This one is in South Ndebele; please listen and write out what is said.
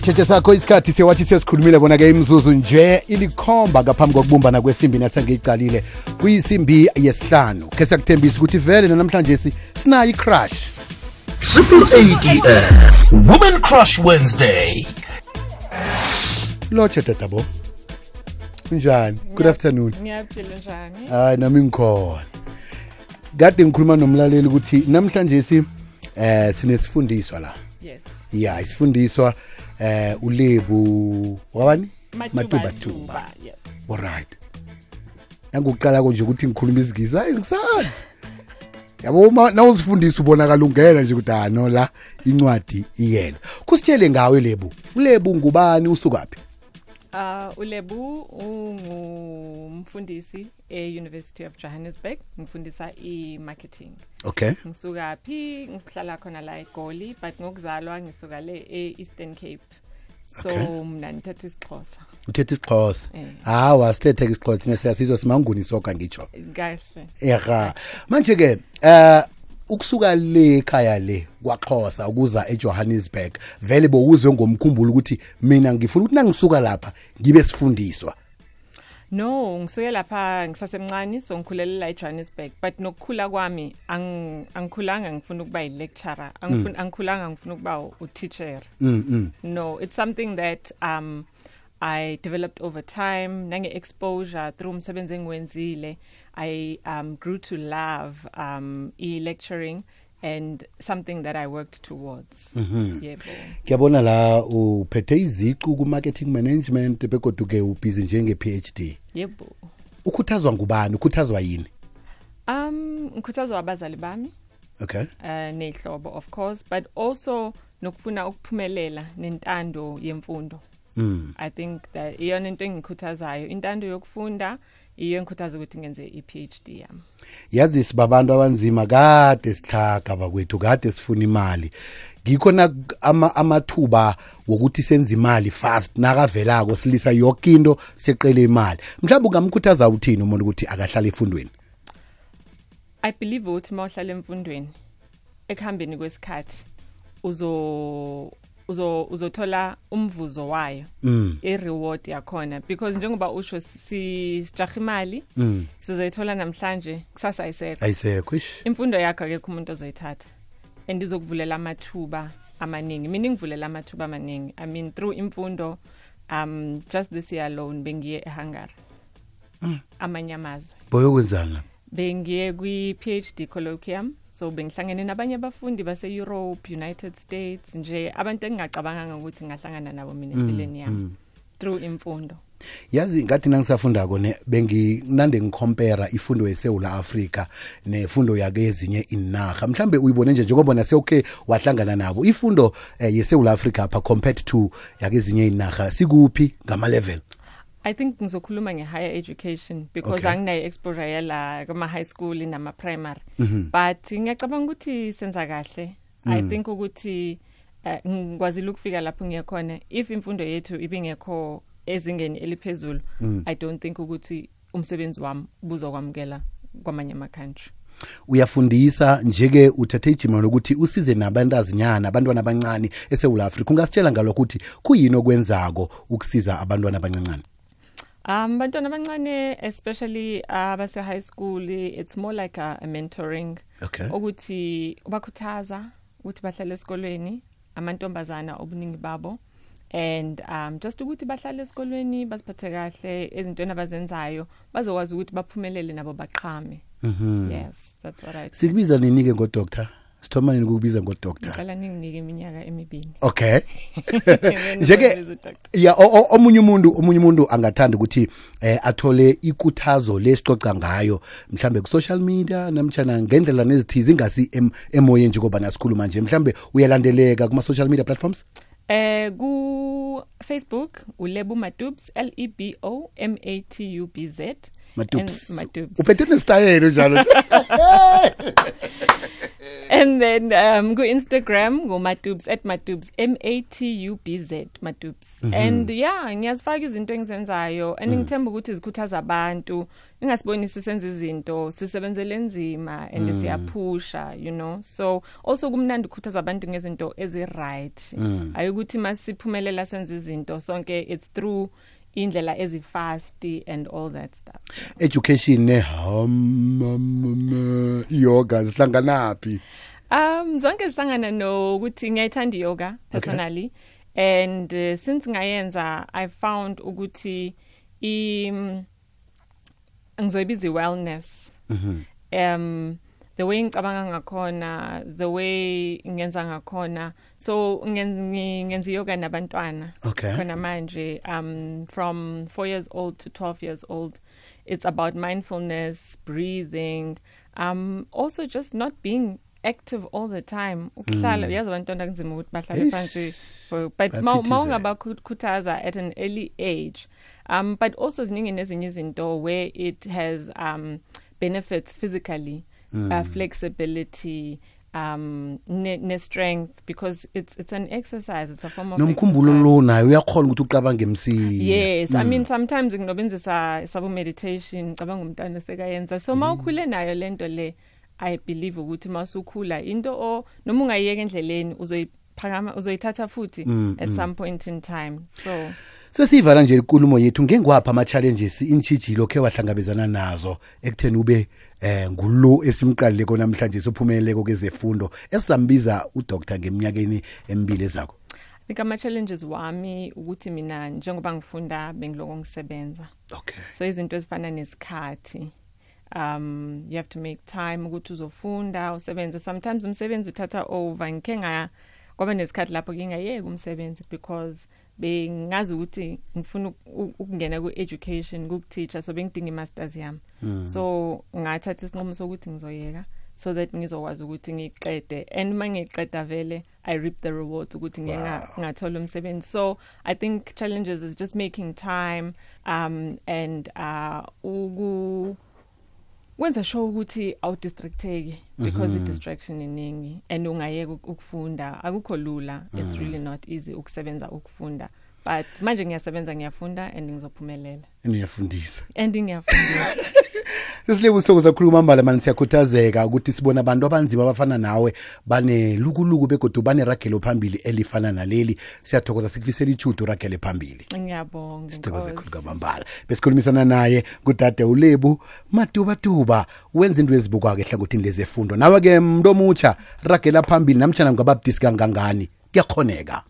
Thethe sakho isikhathi siyawathi sesikhulumile bona ke imzuzu nje ilikhomba ngaphambi kokubumbana kwesimbi nasengiyicalile kuyisimbi yesihlanu ke siyakuthembisa ukuthi vele namhlanje sinayo i-crush AADS Women Crush Wednesday. Lotshe tatabo njani? Good afternoon. Ngiyaphila njani? Hayi nami ngikhona. Kade ngikhuluma nomlaleli ukuthi namhlanje sinesifundiswa la. Yes. Yeah, isifundiswa uLebu wabani? Matuba. Yes. Alright. Nangokuqala konje ukuthi ngikhuluma isigizi hayi ngisazi. Yabo nawuzifundisa ubonakala ungena nje ukuthi no la incwadi iyena. Kusitshele ngawe Lebu. uLebu ngubani usukaphi? uLebu ungumfundisi e-University of Johannesburg, ngifundisa i-marketing. Okay. Ngisuka phi ngihlala khona la eGoli, but ngokuzalwa ngisuka le e-Eastern Cape. So mina ngithetha isiXhosa. Uthetha isiXhosa. Wasithetha isiXhosa thina siyasizwa simanguni soka ngitsho. Kahle. Ega. Manje ke ukusuka le ekhaya le kwaXhosa ukuza eJohannesburg vele bowuzwe ngomkhumbulo ukuthi mina ngifuna ukuthi nangisuka lapha ngibe sifundiswa. No, ngisuke lapha ngisasemncane so ngikhulela la eJohannesburg, but nokukhula kwami angikhulanga ngifuna ukuba i-lecturer, angikhulanga ngifuna ukuba u-teacher. No, it's something that I developed over time, nange-exposure through umsebenzi engiwenzile. I grew to love e-lecturing and something that I worked towards. Yebo. Ngiyabona la uphethe iziqu ku-marketing management bekodwa ke ubhizi njenge-PhD. Yebo. Ukhuthazwa ngubani? Ukhuthazwa yini? Ngikhuthazwa abazali bami. Okay. Nehlobo of course, but also nokufuna ukuphumelela nentando yemfundo. I think that iyona into engikhuthazayo, intando yokufunda iyo engikhuthaza ukuthi ngenze i-PhD yami. Yazi sibabantu abanzima kade sihlaga bakwethu, kade sifuna imali. Ngikhona amathuba wokuthi senze imali fast nakavelako silisa yonke into seqele imali. Mhlawumbe ungamkhuthaza uthini umuntu ukuthi akahlale efundweni? I believe ukuthi mawuhlala emfundweni ekuhambeni kwesikhathi uzothola umvuzo wayo, i-reward yakhona, because njengoba usho sijaha imali sizoyithola namhlanje kusasa ayisekho. Imfundo yakho akekho umuntu ozoyithatha and izokuvulela amathuba amaningi. Mina ngivulela amathuba amaningi. I mean through imfundo, just this year alone bengiye eHungary, amanye amazwe. Boyokwenzana? Bengiye kwi-PhD colloquium. So bengihlangene nabanye abafundi base Europe, United States, nje abantu engingacabanga ukuthi ngahlangana nabo mina empilweni yami through imfundo. Yazi ngathi nangisafundako benginande ngicompare ifundo yeSouth Africa nefundo yake ezinye inarha. Mhlambe uyibone nje njengoba nasewuke wahlangana nabo. Ifundo yeSouth Africa apha compared to yake ezinye inarha sikuphi ngama level? I think ngizokhuluma nge-higher education because anginayo exposure yala kuma high school nama primary. But ngiyacabanga ukuthi senza kahle. I think ukuthi ngikwazile ukufika lapho ngiyakhona. If imfundo yethu ibingekho ezingeni eliphezulu, I don't think ukuthi umsebenzi wami buzokwamukela kwamanye ama country. Uyafundisa njeke uthathe ijima lokuthi usize nabantazinyana, abantwana abancane eSouth Africa. Ungasitshela ngalokho ukuthi kuyini okwenzako ukusiza abantwana abancane? Bantwana abancane, especially abase high school, it's more like a mentoring. Okay. Ukuthi ubakhuthaza ukuthi bahlale esikolweni, amantombazana obuningi babo, and just ukuthi bahlale esikolweni basiphathe kahle, ezintweni abazenzayo bazokwazi ukuthi baphumelele nabo baqhame. Yes, that's what I think. Sikubiza nini ke ngo-doctor? Sithoma nini ukubiza ngo-doctor? Ngicela ninginike iminyaka emibili. Okay. Njeke ya omunye umuntu angathanda ukuthi athole ikuthazo lesixoxa ngayo mhlambe ku social media namtjana ngendlela nezithizi ingasi emoyeni nje ngoba nasikhuluma nje mhlambe uyalandeleka kuma social media platforms? Ku Facebook uLebu Matubs, LEBO MATUBZ, Matubes. Matubes. Uphethe nesitayela njalo. And then go Instagram go Matubes @Matubes MATUBZ Matubes. And yeah, ngiyazifaka izinto engizenzayo and ngithemba ukuthi zikhuthaza abantu. Ingasibonisi senze izinto sisebenzele nzima and siyaphusha, you know. So also kumnandi ukukhuthaza abantu ngezinto ezi-right. Ayukuthi masiphumelela senze izinto sonke it's through indlela ezifast and all that stuff. Yeah. Education yoga zihlanganaphi? Zonke zihlangana nokuthi ngiyayithanda yoga personally. Okay. And since ngayenza I found ukuthi ngizoyibiza wellness. The way ngicabanga ngakhona, the way ngenza ngakhona. So ngenza yoga nabantwana. Okay. Khona manje from 4 years old to 12 years old. It's about mindfulness, breathing, also just not being active all the time. Ukuhlala yazi abantwana kunzima ukuthi bahlale phansi, but mawungabakhuthaza at an early age. But also ziningi nezinye izinto where it has benefits physically. Flexibility, strength, because it's an exercise, it's a form of nomkhumbulo lo nayo uyakhona ukuthi uqabange emsini. Yes, I mean sometimes nginobenzisa sabo meditation cabanga umntana sekayenza, so mawukhule nayo lento le I believe ukuthi masukhula into noma ungayiyeka endleleni uzoyiphakama uzoyithatha futhi at some point in time. So sesivala nje inkulumo yethu ngengwapha ama challenges intshijilo ke wahlangabezana nazo ekutheni ube ngulo esimqalile kona namhlanje sophumeleleko kezefundo esambiza uDr ngeminyakeni emibili ezakho. I think ama challenges wami ukuthi mina njengoba ngifunda bengiloko ngisebenza. Okay. So izinto ezifana nesikhathi. You have to make time ukuthi uzofunda usebenze. Sometimes umsebenzi uthatha over ngike kwaba nesikhathi lapho ngingayeka umsebenzi because bengazi ukuthi ngifuna ukungena ku-education ku-teacher so bengidinga i-masters yami. So ngathatha isinqumo sokuthi ngizoyeka so that ngizokwazi ukuthi ngiqede and mangiqeda vele I reap the rewards ukuthi ngathola umsebenzi. So I think challenges is just making time and wenza sure ukuthi awudistracteki because i-distraction iningi and ungayeka ukufunda akukho lula. It's really not easy ukusebenza ukufunda, but manje ngiyasebenza ngiyafunda and ngizophumelela and ngiyafundisa Sesilebu usuku zakhuluma mbala manje siyakhuthazeka ukuthi sibona abantu abanzima abafana nawe bane lukuluku begodu bane ragelo phambili elifana naleli. Siyathokoza sikufisela ichudo ragelo phambili. Ngiyabonga. Sithokoza khulu kwamambala. Besikhulumisana naye kudade uLebu Matuba wenza into ezibukwa ke hlangothini lezefundo. Nawe ke mntu omutsha ragela phambili namtjana ngababdisi kangangani kuyakhoneka.